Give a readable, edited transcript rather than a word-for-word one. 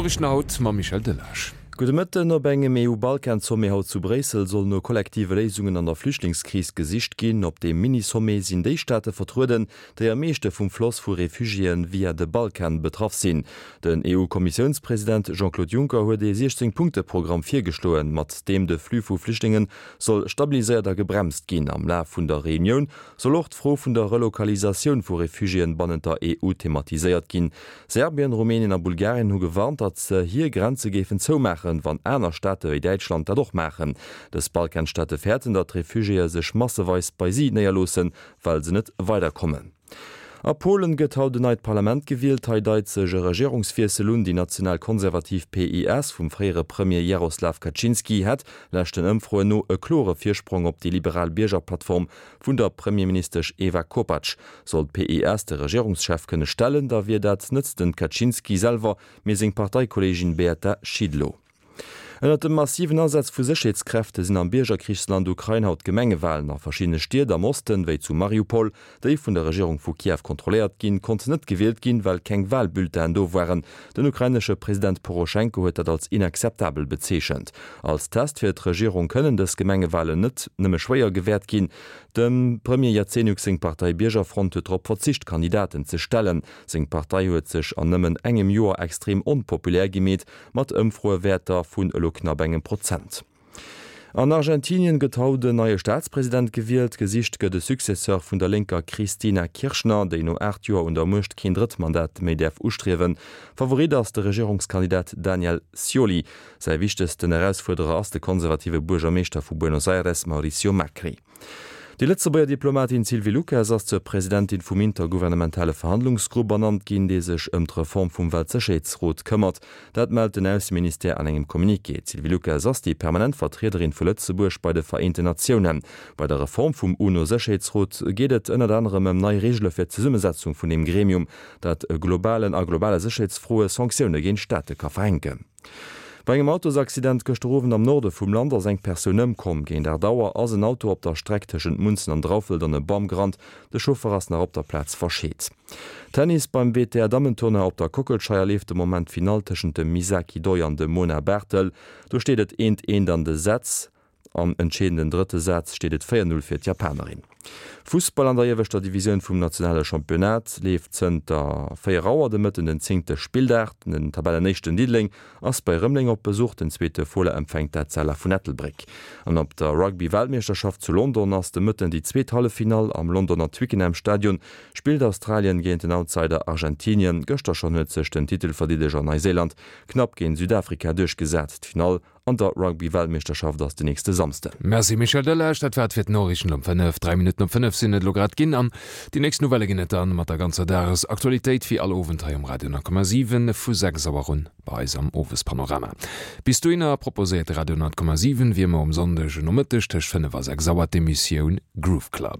D'Noriichten haut mam Michel Delage. Gudde Mëtten. Op engem EU-Balkan-Sommet haut zu Bréissel soll no kollektive Léisungen an der Flüchtlingskris gesicht ginn. Op deem Mini-Sommet sinn déi Staate vertrueden, déi am meeschte vum Floss vu Refugiéen via de Balkan betraff sinn. Den EU-Kommissiounspresident Jean-Claude Juncker huet ee 16 Punkte-Programm virgeschloen, mat deem de Flux vu Flüchtlinge soll stabiliséiert a gebremst ginn. Am Laf vun der Reunioun soll och d'Fro vun der Relokalisatioun vu Refugiéen bannent der EU thematiséiert ginn. Serbien, Rumänien a Bulgarien hu gewarnt, datt se hir Grenze géifen zoumaachen, wann aner Staate wéi Däitschland dat och maachen. Dës Balkanstaate fäerten, datt d'Refugiéë sech masseweis bei si néierloossen, well se net weiderkommen. A Polen gëtt haut en neit Parlament gewielt. Hei deit sech e Regierungswiessel un. Déi national-konservativ PiS vum fréiere Premier Jaroslaw Kaczynski hätt, leschten Ëmfroen no, e klore Virsprong op déi liberal Biergerplattform vun der Premierministesch Ewa Kopacz. Sollt d'PiS de Regierungschef kënne stellen, da wier dat net den Kaczynski selwer, mee seng Parteikolleegin Beata Szydlo. Ënnert dem massiven Asaz vu Sécherheetskräfte sinn am Biergerkrichsland Ukrain haut Gemengewalen. A verschiddene Stied am Osten, wéi zu Mariupol, déi vun der Regierung vu Kiew kontrolléiert ginn, konnt net gewielt ginn, well keng Walbulletinen do waren. Den ukrainesche President Poroschenko huet dat als inakzeptabel bezeechent. Als Test fir d'Regierung kënnen dës Gemengewalen net nëmme schwéier gewäert ginn. Dem Premier Jazenjuk seng Partei Biergerfront huet drop verzicht, Kandidaten ze stellen. Seng Partei huet sech an nëmmen engem Joer extrem onpopulär gemeet, Mat Ëmfroewäerter vun elo knapp engem Prozent. An Argentinien gëtt haut en neie Staatspresident gewielt. Gesicht gëtt e Successeur vun der lénker Cristina Kirchner, déi no 8 Joer un der Muecht keen drëtt Mandat méi däerf ustriewen. Favorit ass de Regierungskandidat Daniel Scioli. Säi wichtegsten Erausfuerderer ass de konservative Buergermeeschter vu Buenos Aires Mauricio Macri. Déi Lëtzebuerger Diplomatin Sylvie Lucas ass zur Presidentin vum intergouvernementale Verhandlungsgrupp ernannt ginn, dee sech ëm d'Reform vum Weltsécherheetsrot këmmert. Dat mellt den Ausseministère an engem Communiqué. D'Sylvie Lucas ass déi permanent Vertriederin vu Lëtzebuerg bei de Vereenten Natiounen. Bei der Reform vum UNO-Sécherheetsrot geet et ënnert anerem ëm nei Reegele fir d'Zesummesetzung vun deem Gremium, dat globalen a globale Sécherheetsfroe Sanktioune géint Staate ka verhänken. Bei engem Autosaccident gëschter Owend am Norde vum Land ass eng Persoun ëmkomm. Géint 8 Auer ass en Auto op der Streck tëschent Munzen an Draufelt an e Bam gerannt. De Chauffer ass nach op der Plaz verscheet. Tennis, Beim WTA-Dammentournoi op der Kockelscheier leeft de Moment d'Finall tëschent dem Misaki Doi an dem Mona Barthel. Do steet et eent eent an de Sätz. Am entscheedenden drëtte Saz steet et 4, 0 fir d'Japanerin. Fussball, An der ieweschter Divisioun vum nationale Championnat leeft zënter 4 Auer de Mëtten den zéngte Spilldag. Den Tabellenéischten Diddeleng ass bei Rëmeleng op Besuch, den zweete Fola empfänkt d'Etzella vun Ettelbréck. An op der Rugby-Weltmeeschterschaft zu London ass de Mëtten déi zweet Halleffinall. Am Londoner Twickenham Stadion spillt Australien géint den Outsider Argentinien. Gëschter schonn huet sech den Titelverdeedeger Neiséiland knapp géint Südafrika duerchgesat. D'Finall An der Rugby-Weltmeeschterschaft ass de nächste Samsden. Merci Michel Delage, dat war et fir d'Noriichten um 5. 3 Minutten op 5 sinn et elo grad ginn an déi nächst Nouvellë ginn et dann mat der ganzer Dagesaktualitéit wéi all Owend hei um Radio 10,7 vu 6 Auer un bei eis am Owespanorama. Bis dohinner proposéiert de Radio 10,7 wéi ëmmer um Sonndeg Nomëtteg tëscht 5 a 6 Auer d'Emissioun Groove Club.